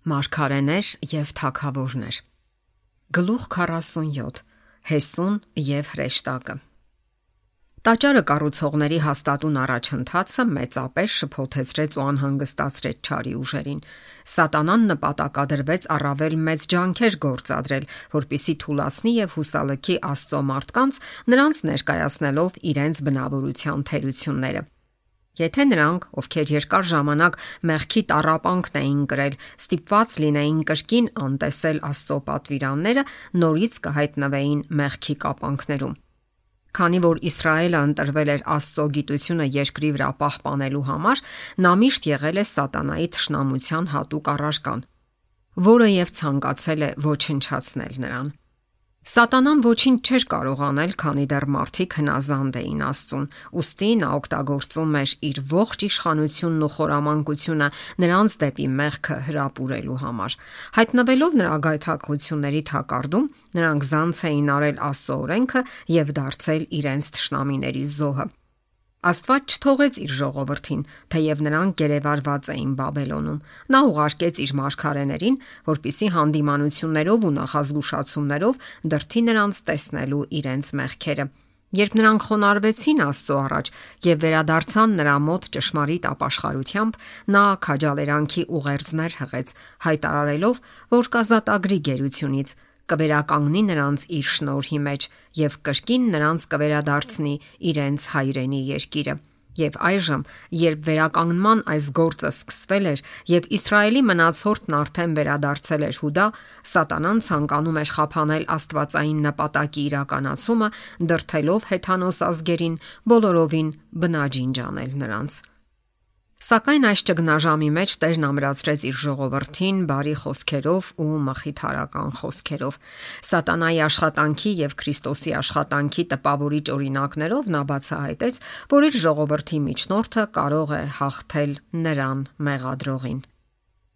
Մարգարեներ եւ թագավորներ։ Գլուխ 47. Հեսուն եւ հրեշտակը։ Տաճարը կառուցողների հաստատուն առաջընթացը մեծապես շփոթեցրեց ու անհանգստացրեց չարի ուժերին։ Սատանան նպատակադրվեց առավել մեծ ջանքեր գործադրել, որպիսի թուլացնի եւ հուսալքի Աստծո մարդկանց, նրանց ներկայացնելով իրենց բնավորության թերությունները։ Եթե նրանք, ովքեր երկար ժամանակ մեղքի տառապանքն էին կրել, ստիպված լինեին կրկին անտեսել Աստծո պատվիրանները, նորից կհայտնվեին մեղքի կապանքներում։ Քանի որ Իսրայելը ընտրվել էր Աստծո գիտությունը երկրի վրա պահպանելու համար, նա միշտ եղել է սատանայի թշնամության հատուկ առարկան, որը եւ ցանկացել է ոչնչացնել նրան։ Սատանան ոչինչ չէր կարող անել, քանի դեռ մարդիկ հնազանդ էին Աստծուն, ուստի նա օգտագործում էր իր ողջ իշխանությունն ու խորամանկությունը նրանց դեպի մեղքը հրապուրելու համար։ Հայտնվելով նրա գայթակղությունների թակարդում, նրանք զանց էին արել Աստծո օրենքը եւ դարձել իրենց թշնամիների զոհը։ Աստված չթողեց իր ժողովրդին, թեև նրանք գերեվարված էին Բաբելոնում։ Նա ուղարկեց իր մարգարեներին, որպիսի հանդիմանություններով ու նախազգուշացումներով դրթի նրանց տեսնելու իրենց մեղքերը։ Երբ նրանք խոնարհվեցին Աստծո առաջ եւ վերադարձան նրա մոտ ճշմարիտ ապաշխարությամբ, նա քաջալերանքի ուղերձներ հղեց, հայտարարելով, որ կազատագրի գերությունից, կվերականգնի նրանց իր շնորհի մեջ եւ կրկին նրանց կվերադարձնի իրենց հայրենի երկիրը։ Եվ այժմ, երբ վերականգնման այս գործը սկսվել էր եւ Իսրայելի մնացորդն արդեն վերադարձել էր Հուդա, Սատանան ցանկանում էր խափանել աստվածային նպատակի իրականացումը, դրթելով հեթանոս ազգերին բոլորովին բնաջինջ անել նրանց։ Սակայն այս ճգնաժամի մեջ Տերն ամրացրեց իր ժողովրդին բարի խոսքերով ու մխիթարական խոսքերով։ Սատանայի աշխատանքի եւ Քրիստոսի աշխատանքի տպավորիչ օրինակներով նա բացահայտեց, որ իր ժողովրդի միջնորդը կարող է հաղթել նրան մեղադրողին։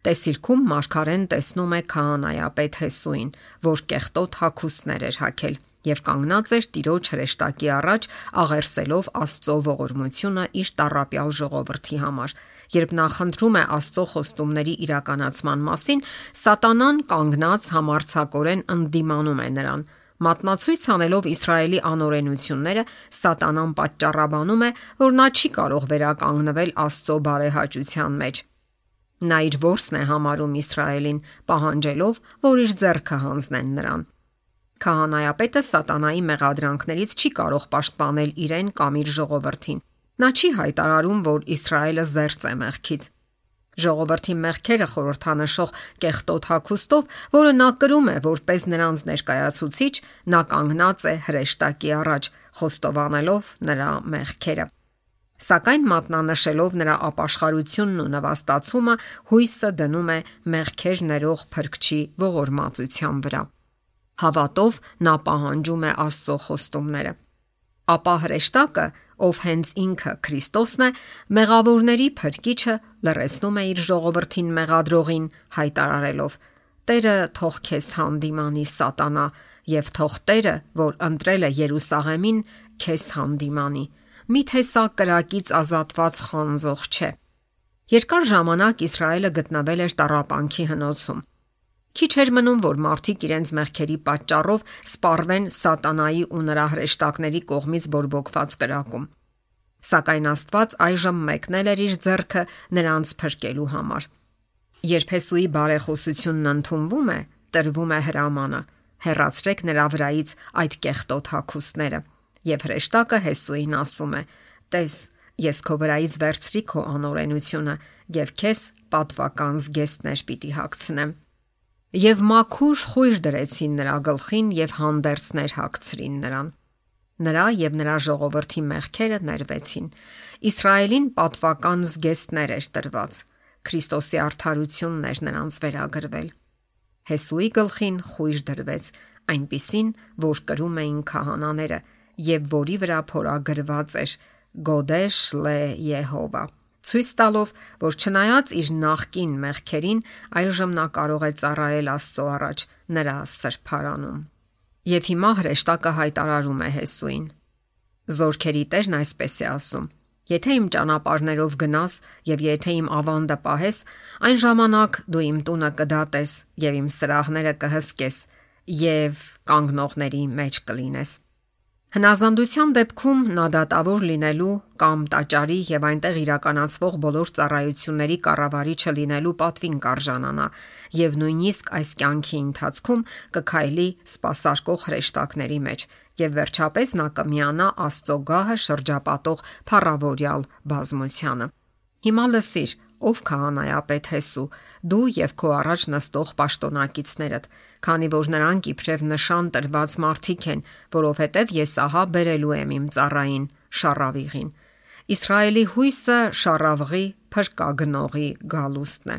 Տեսիլքում մարգարեն տեսնում է քահանայապետ Հեսուին, որ կեղտոտ հագուստներ էր հագել եւ կանգնած էր Տիրոջ հրեշտակի առաջ, աղերսելով Աստծո ողորմությունը իր տառապյալ ժողովրդի համար։ Երբ նա խնդրում է Աստծո խոստումների իրականացման մասին, Սատանան կանգնած համարձակորեն ընդդիմանում է նրան։ Մատնացույց անելով Իսրայելի անօրենությունները, Սատանան պատճառաբանում է, որ նա չի կարող վերականգնվել Աստծո բարեհաճության մեջ։ Նա իր ворսն է համարում Իսրայելին, պահանջելով, որ իր ձեռքը հանձնեն նրան։ Քահանայապետը Սատանայի մեղադրանքներից չի կարող պաշտպանել իրեն կամ իր ժողովրդին։ Նա չի հայտարարում, որ Իսրայելը զերծ է մեղքից։ Ժողովրդի մեղքերը խորհրդանշող կեղտոտ հագուստով, որը նա կրում է որպես նրանց ներկայացուցիչ, նա կանգնած է հրեշտակի առաջ, խոստովանելով նրա մեղքերը։ Սակայն մատնանշելով նրա ապաշխարությունն ու նվաստացումը, հույսը դնում է մեղքեր ներող Փրկչի ողորմածության վրա։ Հավատով նա պահանջում է Աստծո խոստումները։ Ապա հրեշտակը, ով հենց ինքը Քրիստոսն է, մեղավորների Փրկիչը, լռեցնում է իր ժողովրդին մեղադրողին, հայտարարելով. Տերը թող քեզ հանդիմանի Սատանա, եւ թող Տերը, որ ընտրել է Երուսաղեմին, քեզ հանդիմանի։ Միթե սա կրակից ազատված խանձող չէ։ Երկար ժամանակ Իսրայելը գտնվել էր տառապանքի հնոցում։ Քիչ էր մնում, որ մարդիկ իրենց մեղքերի պատճառով սպառվեն Սատանայի ու նրա հրեշտակների կողմից բորբոքված կրակում։ Սակայն Աստված այժմ մեկնել էր իր ձեռքը նրանց փրկելու համար։ Երբ Հեսուի բարեխոսությունն ընդունվում է, տրվում է հրամանը. հեռացրեք նրա վրայից այդ կեղտոտ հագուստները։ Եվ հրեշտակը Հեսուին ասում է. Տես, ես քո վրայից վերցրի քո անօրենությունը եւ քեզ պատվական զգեստներ պիտի հագցնեմ։ Եվ մաքուր խույր դրեցին նրա գլխին եւ հանդերձներ հագցրին նրան։ Նրա եւ նրա ժողովրդի մեղքերը ներվեցին։ Իսրայելին պատվական զգեստներ էր տրված։ Քրիստոսի արդարությունն էր նրանց վերագրվել։ Հեսուի գլխին խույր դրվեց, այնպիսին, որ կրում էին քահանաները եւ որի վրա փորագրված էր Գոդեշ լե Եհովա, ցույց տալով, որ չնայած իր նախկին մեղքերին, այժմ նա կարող է ծառայել Աստծո առաջ նրա սրբարանում։ Եվ հիմա հրեշտակը հայտարարում է Հեսուին. Զորքերի Տերն այսպես է ասում. Եթե իմ ճանապարհներով գնաս եւ եթե իմ ավանդը պահես, այն ժամանակ դու իմ տունը կդատես եւ իմ սրահները կհսկես եւ կանգնողների մեջ կլինես։ Հնազանդության դեպքում նա դատավոր լինելու կամ տաճարի եւ այնտեղ իրականացվող բոլոր ծառայությունների կառավարիչը լինելու պատվին կարժանանա եւ նույնիսկ այս կյանքի ընթացքում կքայլի սպասարկող հրեշտակների մեջ եւ վերջապես նա կմիանա Աստծո գահը շրջապատող փառավորյալ բազմությանը։ Հիմա լսիր, ով քահանայապետ Հեսու, դու եւ քո առաջ նստող պաշտոնակիցներդ, քանի որ նրանք իբրև նշան տրված մարդիկ են, որովհետեւ ես ահա բերելու եմ իմ ծառային Շառավիղին։ Իսրայելի հույսը Շառավղի փրկագնողի գալուստն է։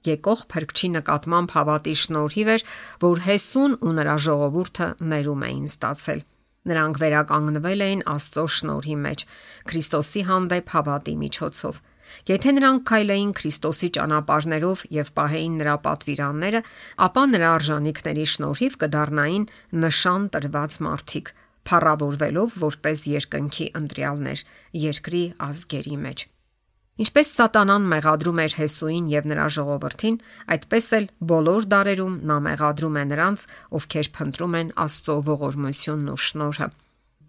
Եկող փրկչի նկատմամբ հավատի շնորհիվ էր, որ Հեսուն ու նրա ժողովուրդը ներում էին ստացել։ Նրանք վերականգնվել էին Աստծո շնորհի մեջ, Քրիստոսի հանդեպ հավատի միջոցով։ Եթե նրանք քայլեին Քրիստոսի ճանապարհներով եւ պահեին նրա պատվիրանները, ապա նրա արժանինքների շնորհիվ կդառնային նշան տրված մարդիկ, փառավորվելով որպես երկնքի ընտրյալներ երկրի ազգերի մեջ։ Ինչպես Սատանան մեղադրում էր Հեսուին եւ նրա ժողովրդին, այդպես էլ բոլոր դարերում նա մեղադրում է նրանց, ովքեր փնտրում են Աստծո ողորմությունն ու շնորհը։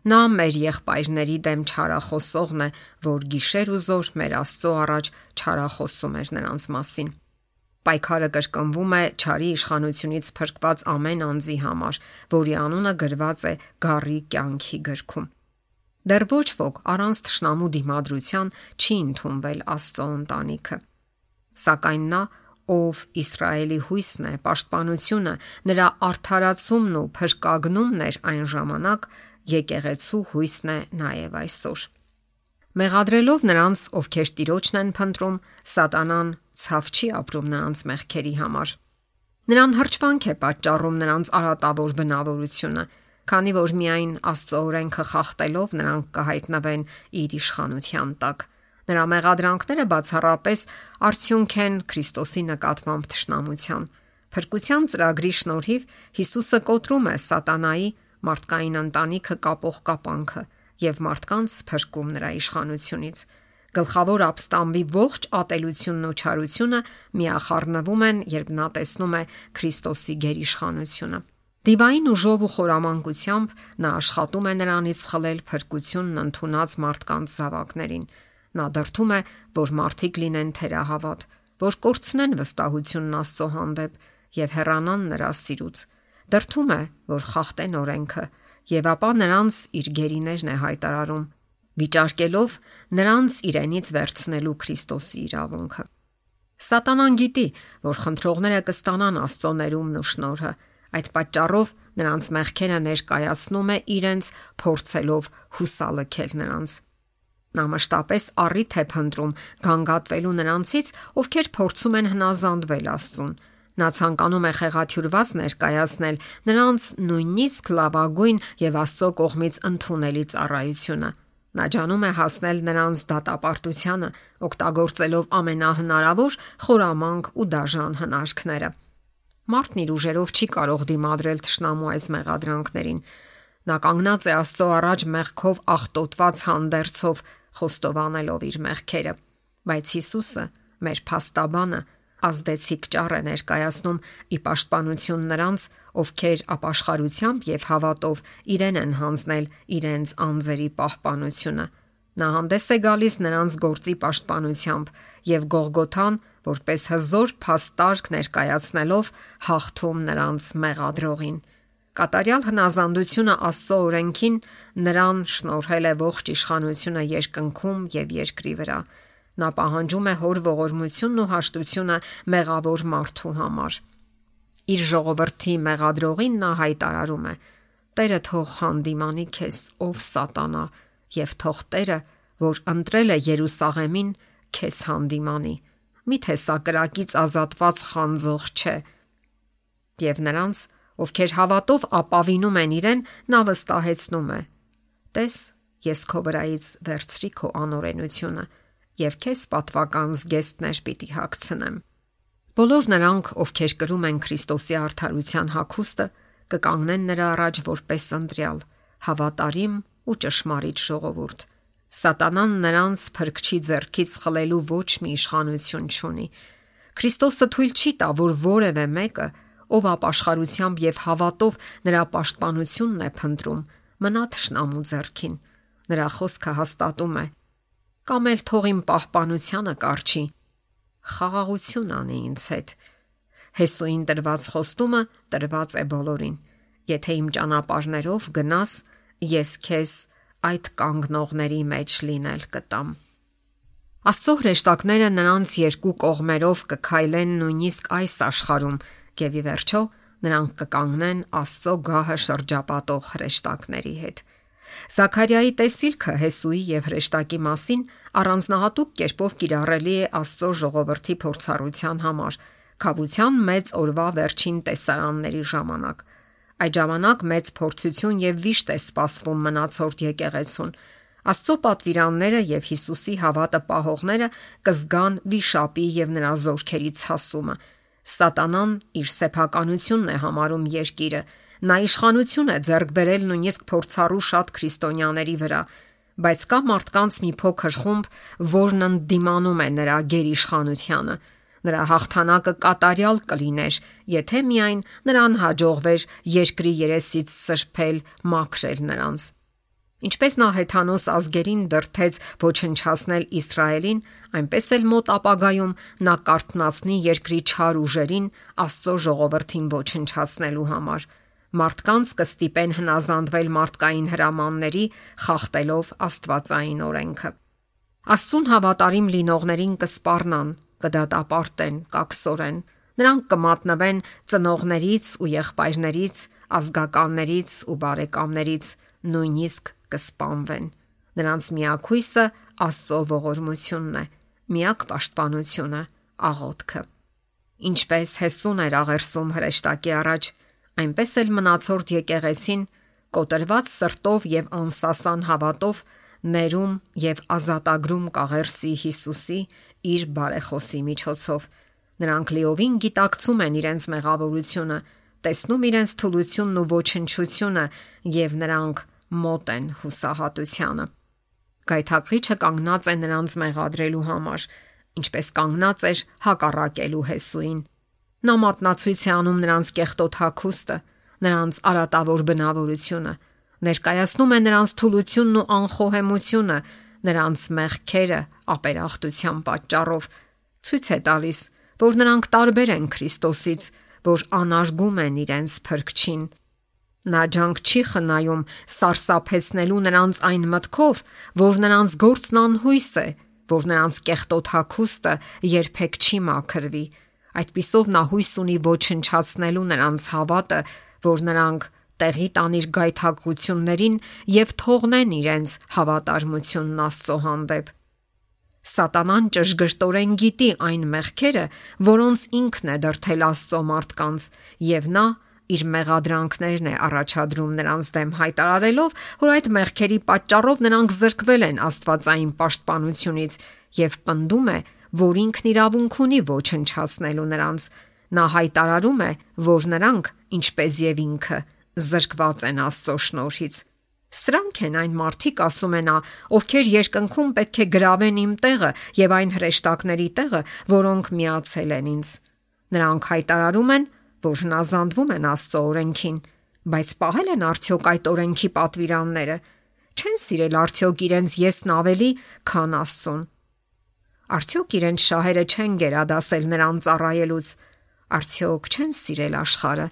Նա մեր եղբայրների դեմ չարախոսողն է, որ գիշեր ու զօր մեր Աստծո առաջ չարախոսում էր նրանց մասին։ Պայքարը կրկնվում է չարի իշխանությունից փրկված ամեն անձի համար, որի անունը գրված է գառի կյանքի գրքում։ Դեռ ոչ ոք առանց թշնամու դիմադրության չի ընդունվել Աստծո ընտանիքը։ Սակայն նա, ով Իսրայելի հույսն է, պաշտպանությունը, նրա արդարացումն ու փրկագնումն էր այն ժամանակ, եկեղեցու հույսն է նաև այսօր։ Մեղադրելով նրանց, ովքեր Տիրոջն են փնտրում, Սատանան ցավ չի ապրում նրանց մեղքերի համար։ Նրան հրճվանք է պատճառում նրանց արատավոր բնավորությունը, քանի որ միայն Աստծո օրենքը խախտելով նրանք կհայտնվեն իր իշխանության տակ։ Նրա մեղադրանքները բացառապես արդյունք են Քրիստոսի նկատմամբ թշնամության։ Փրկության ծրագրի շնորհիվ Հիսուսը կոտրում է Սատանայի մարդկային ընտանիքը կապող կապանքը եւ մարդկանց փրկում նրա իշխանությունից։ Գլխավոր ապստամբի ողջ ատելությունն ու չարությունը միախառնվում են, երբ նա տեսնում է Քրիստոսի գերիշխանությունը։ Դիվային ուժով ու խորամանկությամբ նա աշխատում է նրանից խլել փրկությունն ընդունած մարդկանց զավակներին։ Նա դրդում է, որ մարդիկ լինեն թերահավատ, որ կորցնեն վստահությունն Աստծո հանդեպ եւ հեռանան նրա սիրուց։ Դրդում է, որ խախտեն օրենքը եւ ապա նրանց իր գերիներն է հայտարարում, վիճարկելով նրանց իրենից վերցնելու Քրիստոսի իրավունքը։ Սատանան գիտի, որ խնդրողները կստանան Աստծո ներումն ու շնորհը, այդ պատճառով նրանց մեղքերը ներկայացնում է իրենց փորձելով հուսալքել նրանց։ Նա մշտապես առիթ է փնտրում գանգատվելու նրանցից, ովքեր փորձում են հնազանդվել Աստծուն։ Նա ցանկանում է խեղաթյուրված ներկայացնել նրանց նույնիսկ լավագույն եւ Աստծո կողմից ընդունելի ծառայությունը։ Նա ջանում է հասնել նրանց դատապարտությանը, օգտագործելով ամենահնարավոր խորամանկ ու դաժան հնարքները։ Մարդն իր ուժերով չի կարող դիմադրել թշնամու այս մեղադրանքներին։ Նա կանգնած է Աստծո առաջ մեղքով աղտոտված հանդերձով, խոստովանելով իր մեղքերը։ Բայց Հիսուսը, մեր փաստաբանը, ազդեցիկ ճառ է ներկայացնում ի պաշտպանություն նրանց, ովքեր ապաշխարությամբ եւ հավատով իրեն են հանձնել իրենց անձերի պահպանությունը։ Նա հանդես է գալիս նրանց գործի պաշտպանությամբ եւ Գողգոթան, որպես հզոր փաստարկ ներկայացնելով, հաղթում նրանց մեղադրողին։ Կատարյալ հնազանդությունը Աստծո օրենքին նրան շնորհել է ողջ իշխանությունը երկնքում եւ երկրի վրա։ Նա պահանջում է հոր ողորմությունն ու հաշտությունը մեղավոր մարդու համար։ Իր ժողովրդի մեղադրողին նա հայտարարում է. Տերը թող հանդիմանի քեզ, ով Սատանա, եւ թող Տերը, որ ընտրել է Երուսաղեմին, քեզ հանդիմանի։ Միթե սա կրակից ազատված խանձող չէ։ Եվ նրանց, ովքեր հավատով ապավինում են իրեն, նա վստահեցնում է. Տես, ես քո վրայից վերցրի քո անօրենությունը եւ քեզ պատվական զգեստներ պիտի հագցնեմ։ Բոլոր նրանք, ովքեր կրում են Քրիստոսի արդարության հագուստը, կկանգնեն նրա առաջ որպես ընտրյալ, հավատարիմ ու ճշմարիտ ժողովուրդ։ Սատանան նրանց փրկչի ձեռքից խլելու ոչ մի իշխանություն չունի։ Քրիստոսը թույլ չի տա, որ որևէ մեկը, ով ապաշխարությամբ եւ հավատով նրա պաշտպանությունն է փնտրում, մնա թշնամու ձեռքին։ Նրա խոսքը հաստատում է. կամ էլ թող իմ պահպանությանը կառչի, խաղաղություն անի ինձ հետ։ Հեսուին տրված խոստումը տրված է բոլորին։ Եթե իմ ճանապարհներով գնաս, ես քեզ այդ կանգնողների մեջ լինել կտամ։ Աստծո հրեշտակները նրանց երկու կողմերով կքայլեն նույնիսկ այս աշխարհում, եւ ի վերջո նրանք կկանգնեն Աստծո գահը շրջապատող հրեշտակների հետ։ Զաքարիայի տեսիլքը Հեսուի եւ հրեշտակի մասին առանձնահատուկ կերպով կիրառելի է Աստծո ժողովրդի փորձառության համար, քավության մեծ օրվա վերջին տեսարանների ժամանակ։ Այդ ժամանակ մեծ փորձություն եւ վիշտ է սպասվում մնացորդ եկեղեցուն։ Աստծո պատվիրանները եւ Հիսուսի հավատը պահողները կզգան վիշապի եւ նրա զորքերի ցասումը։ Սատանան իր սեփականությունն է համարում երկիրը։ Նա իշխանություն է ձեռք բերել նույնիսկ փորձառու շատ քրիստոնյաների վրա, բայց կա մարդկանց մի փոքր խումբ, որն ընդդիմանում է նրա գերիշխանությանը։ Նրա հաղթանակը կատարյալ կլիներ, եթե միայն նրան հաջողվեր երկրի երեսից սրբել, մաքրել նրանց։ Ինչպես նա հեթանոս ազգերին դրդեց ոչնչացնել Իսրայելին, այնպես էլ մոտ ապագայում նա կարթնացնի երկրի չար ուժերին Աստծո ժողովրդին ոչնչացնելու համար։ Մարդկանց կստիպեն հնազանդվել մարդկային հրամանների, խախտելով Աստվածային օրենքը։ Աստծուն հավատարիմ լինողներին կսպառնան, կդատապարտեն, կակսորեն։ Նրանք կմատնվեն ծնողներից ու եղբայրներից, ազգականներից ու բարեկամներից, նույնիսկ կսպանվեն։ Նրանց միակ հույսը Աստծո ողորմությունն է, միակ պաշտպանությունը աղոթքը։ Ինչպես Հեսուն էր աղերսում հրեշտակի առաջ, այնպես էլ մնացորդ եկեղեցին կոտրված սրտով եւ անսասան հավատով ներում եւ ազատագրում կաղերսի Հիսուսի իր բարեխոսի միջոցով։ Նրանք լիովին գիտակցում են իրենց մեղավորությունը, տեսնում իրենց թուլությունն ու ոչնչությունը եւ նրանք մոտ են հուսահատությանը։ Գայթակղիչը կանգնած է նրանց մեղադրելու համար, ինչպես կանգնած էր հակառակելու Հեսուին։ Նա մատնացույց է անում նրանց կեղտոտ հագուստը, նրանց արատավոր բնավորությունը, ներկայացնում է նրանց թուլությունն ու անխոհեմությունը, նրանց մեղքերը ապերախտության պատճառով, ցույց է տալիս, որ նրանք տարբեր են Քրիստոսից, որ անարգում են իրենց փրկչին։ Նա ջանք չի խնայում սարսափեցնելու նրանց այն մտքով, որ նրանց գործն անհույս է, որ նրանց կեղտոտ հագուստը երբեք չի մաքրվի։ Այդպիսով նա հույս ունի ոչնչացնելու նրանց հավատը, որ նրանք տեղի տան իր գայթակղություններին եւ թողնեն իրենց հավատարմությունն Աստծո հանդեպ։ Սատանան ճշգրտորեն գիտի այն մեղքերը, որոնց ինքն է դրդել Աստծո մարդկանց, եւ նա իր մեղադրանքներն է առաջադրում նրանց դեմ, հայտարարելով, որ այդ մեղքերի պատճառով նրանք զրկվել են Աստվածային պաշտպանությունից, եւ պնդում է, որ ինքն իրավունք ունի ոչնչացնելու նրանց։ Նա հայտարարում է, որ նրանք, ինչպես եւ ինքը, զրկված են Աստծո շնորհից։ Սրանք են այն մարդիկ, ասում է նա, ովքեր երկնքում պետք է գրավեն իմ տեղը եւ այն հրեշտակների տեղը, որոնք միացել են ինձ։ Նրանք հայտարարում են, որ հնազանդվում են Աստծո օրենքին, բայց պահել են արդյոք այդ օրենքի պատվիրանները։ Չեն սիրել արդյոք իրենց եսն ավելի, քան Աստծուն։ Արդյոք իրենց շահերը չեն գերադասել նրան ծառայելուց։ Արդյոք չեն սիրել աշխարհը։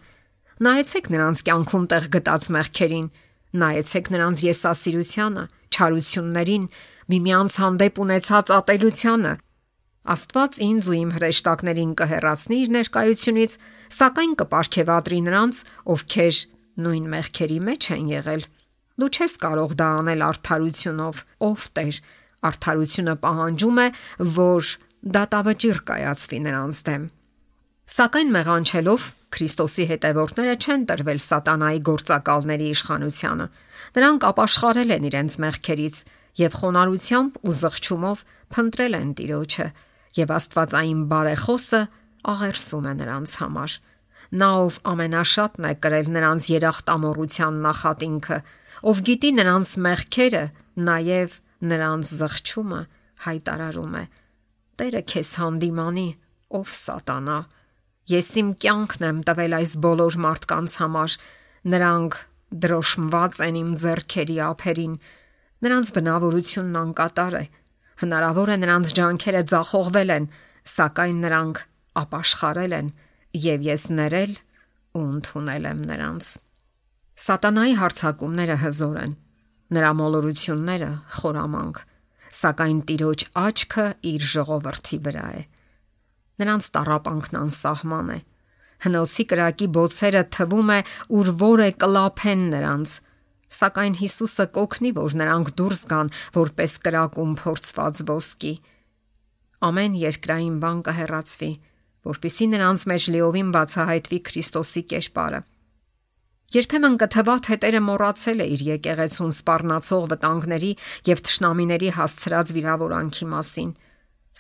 Նայեցեք նրանց կյանքում տեղ գտած մեղքերին, նայեցեք նրանց եսասիրությանը, չարություններին, միմյանց հանդեպ ունեցած ատելությանը։ Աստված ինձ ու իմ հրեշտակներին կհեռացնի իր ներկայությունից, սակայն կպարգևատրի նրանց, ովքեր նույն մեղքերի մեջ են եղել։ Դու չես կարող դա անել արդարությունով, ով Տեր։ Արդարությունը պահանջում է, որ դատավճիռ կայացվի նրանց դեմ։ Սակայն մեղանչելով Քրիստոսի հետևորդները չեն տրվել սատանայի գործակալների իշխանությանը։ Նրանք ապաշխարել են իրենց մեղքերից եւ խոնարհությամբ ու զղջումով փնտրել են Տիրոջը, եւ Աստվածային բարեխոսը աղերսում է նրանց համար։ Նա, ով ամենաշատն է կրել նրանց երախտամոռության նախատինքը, ով գիտի նրանց մեղքերը, նաեւ նրանց զղջումը հայտարարում է. Տերը քեզ հանդիմանի, ով սատանա։ Ես իմ կյանքն եմ տվել այս բոլոր մարդկանց համար, նրանք դրոշմված են իմ ձեռքերի ափերին, նրանց բնավորությունն անկատար է, հնարավոր է նրանց ջանքերը ձախողվել են, սակայն նրանք ապաշխարել են, եւ ես ներել ու ընդունել եմ նրանց։ Սատանայի հարձակումները հզոր են, նրա մոլորությունները խորամանկ, սակայն Տիրոջ աչքը իր ժողովրդի վրա է։ Նրանց տառապանքն անսահման է։ Հնոցի կրակի բոցերը թվում է ուր որը կլափեն նրանց, սակայն Հիսուսը կօգնի, որ նրանք դուրս գան որպես կրակում փորձված ոսկի։ Ամեն երկրային բան կհեռացվի, որպեսզի նրանց մեջ լիովին բացահայտվի Քրիստոսի կերպարը։ Երբեմն կթվա, թե Տերը մոռացել է իր եկեղեցուն սպառնացող վտանգների եւ թշնամիների հասցրած վիրավորանքի մասին,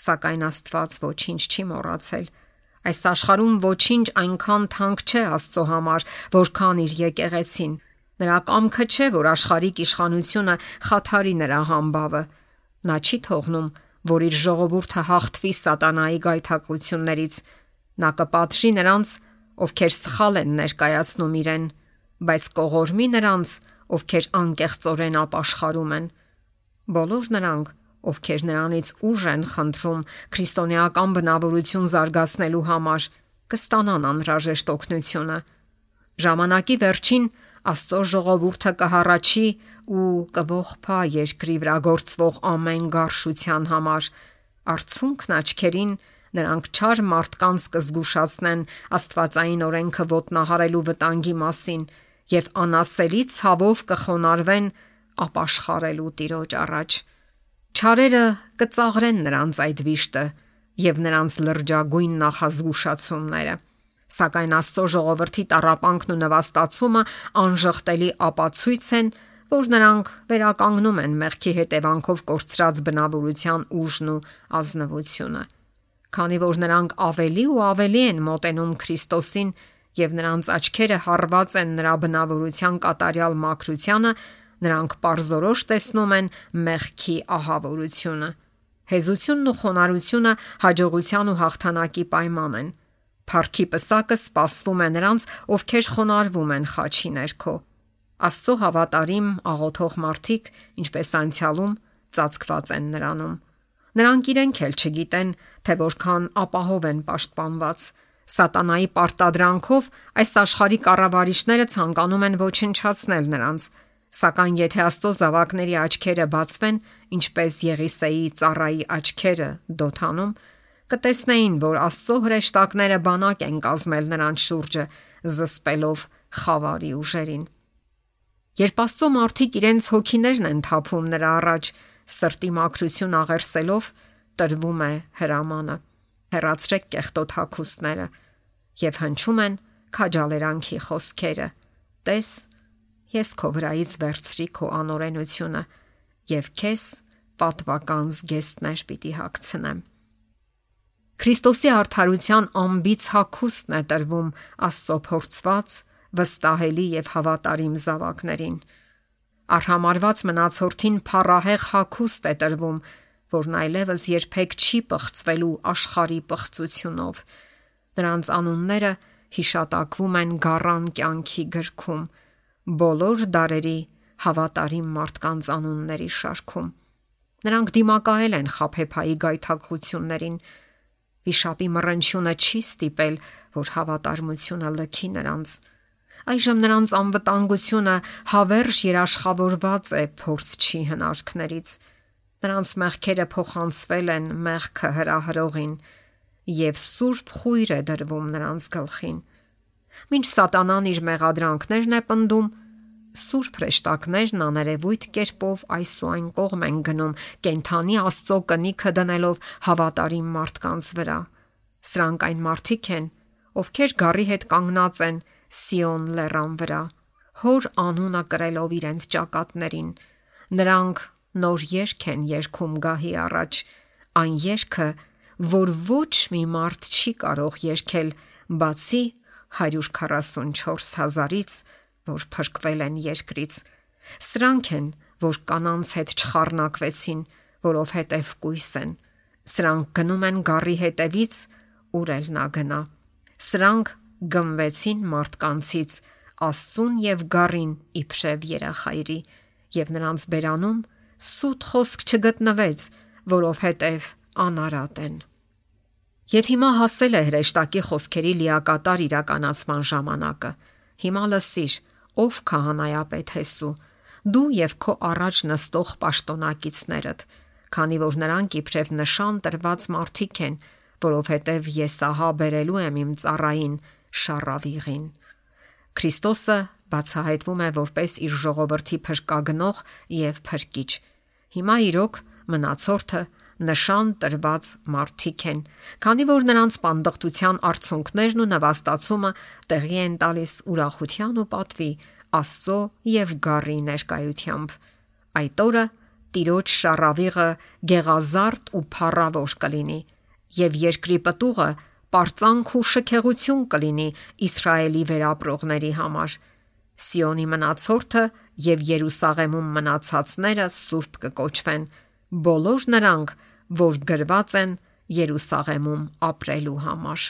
սակայն Աստված ոչինչ չի մոռացել։ Այս աշխարհում ոչինչ այնքան թանկ չէ Աստծո համար, որքան իր եկեղեցին։ Նրա կամքը չէ, որ աշխարհիկ իշխանությունը խաթարի նրա համբավը։ Նա չի թողնում, որ իր ժողովուրդը հաղթվի սատանայի գայթակղություններից։ Նա կպատժի նրանց, ովքեր սխալ են ներկայացնում իրեն, բայց կողորմի նրանց, ովքեր անկեղծորեն ապաշխարում են։ Բոլոր նրանք, ովքեր նրանից ուժ են խնդրում քրիստոնեական բնավորություն զարգացնելու համար, կստանան անհրաժեշտ օգնությունը։ Ժամանակի վերջին Աստծո ժողովուրդը կհառաչի ու կողփա երկրի վրա գործվող ամեն գարշության համար։ Արցունքն աչքերին նրանք չար մարդկանց կզգուշացնեն աստվածային օրենքը ոտնահարելու վտանգի մասին եւ անասելի ցավով կխոնարհվեն ապաշխարելու Տիրոջ առաջ։ Չարերը կծաղրեն նրանց այդ վիշտը եւ նրանց լրջագույն նախազգուշացումները։ Սակայն Աստծո ժողովրդի տառապանքն ու նվաստացումը անժխտելի ապացույց են, որ նրանք վերականգնում են մեղքի հետևանքով կորցրած բնավորության ուժն ու ազնվությունը։ Քանի որ նրանք ավելի ու ավելի են մոտենում Քրիստոսին եւ նրանց աչքերը հառված են նրա բնավորության կատարյալ մաքրությանը, նրանք պարզորոշ տեսնում են մեղքի ահավորությունը։ Հեզությունն ու խոնարհությունը հաջողության ու հաղթանակի պայման են։ Փառքի պսակը սպասվում է նրանց, ովքեր խոնարհվում են խաչի ներքո։ Աստծո հավատարիմ աղոթող մարդիկ, ինչպես անցյալում, ծածկված են նրանում։ Նրանք իրենք էլ չգիտեն, թե որքան ապահով են պաշտպանված։ Սատանայի պարտադրանքով այս աշխարհի կառավարիչները ցանկանում են ոչնչացնել նրանց, սակայն եթե Աստծո զավակների աչքերը բացվեն, ինչպես Եղիսեի ծառայի աչքերը Դոթանում, կտեսնեին, որ Աստծո հրեշտակները բանակ են կազմել նրանց շուրջը, զսպելով խավարի ուժերին։ Երբ Աստծո մարդիկ իրենց հոգիներն են թափում նրա առաջ, սրտի մաքրություն աղերսելով, տրվում է հրամանը. հեռացրեք կեղտոտ հագուստները, եւ հնչում են քաջալերանքի խոսքերը. Տես, ես քո վրայից վերցրի քո անօրենությունը եւ քեզ պատվական զգեստներ պիտի հագցնեմ։ Քրիստոսի արդարության ամբից հագուստն է տրվում Աստծո փորձված, վստահելի եւ հավատարիմ զավակներին։ Արհամարված մնացորդին փառահեղ հագուստ է տրվում, որն այլևս երբեք չի պղծվելու աշխարհի պղծությունով։ Նրանց անունները հիշատակվում են գառան կյանքի գրքում, բոլոր դարերի հավատարիմ մարդկանց անունների շարքում։ Նրանք դիմակայել են խաբեբայի գայթակղություններին։ Վիշապի մռնչյունը չի ստիպել, որ հավատարմությունը լքի նրանց։ Այժմ նրանց անվտանգությունը հավերժ երաշխավորված է փորձչի հնարքներից։ Նրանց մեղքերը փոխանցվել են մեղքը հրահրողին եւ սուրբ խույր է դրվում նրանց գլխին։ Մինչ սատանան իր մեղադրանքներն է պնդում, սուրբ հրեշտակներն աներևույթ կերպով այս ու այն կողմ են գնում, կենթանի Աստծո կնիքը դնելով հավատարիմ մարդկանց վրա։ Սրանք այն մարդիկ են, ովքեր գառի հետ կանգնած են Սիոն լեռան վրա, հոր անունը կրելով իրենց ճակատներին։ Նրանք նոր երգ են երգում գահի առաջ, այն երգը, որ ոչ մի մարդ չի կարող երգել, բացի 144,000-ից, որ փրկվել են երկրից։ Սրանք են, որ կանանց հետ չխառնակվեցին, որովհետև կույս են։ Սրանք գնում են գառի հետևից, ուր էլ նա գնա։ Սրանք գմվեցին մարդկանցից, Աստծուն եւ գառին իբրև երախայրի, եւ նրանց բերանում սուտ խոսք չգտնվեց, որովհետև անարատ են։ Եվ հիմա հասել է հրեշտակի խոսքերի լիակատար իրականացման ժամանակը։ Հիմա լսիր, ով քահանայապետ Հեսու, դու եւ քո առաջ նստող պաշտոնակիցներդ, քանի որ նրանք իբրև նշան տրված մարդիկ են, որովհետև ես ահա բերելու եմ իմ ծառային Շառավիղին։ Քրիստոսը բացահայտվում է որպես իր ժողովրդի փրկագնող եւ փրկիչ։ Հիմա իրոք մնացորդը նշան տրված մարդիկ են, քանի որ նրանց պանդխտության արդյունքներն ու նվաստացումը տեղի են տալիս ուրախության ու պատվի, Աստծո եւ գառի ներկայությամբ։ Այդ օրը Տիրոջ Շառավիղը գեղազարդ ու փառավոր կլինի, եւ երկրի պտուղը պարծանք ու շքեղություն կլինի Իսրայելի վերապրողների համար։ Սիոնի մնացորդը եւ Երուսաղեմում մնացածները սուրբ կկոչվեն, բոլոր նրանք, որ գրված են Երուսաղեմում ապրելու համար։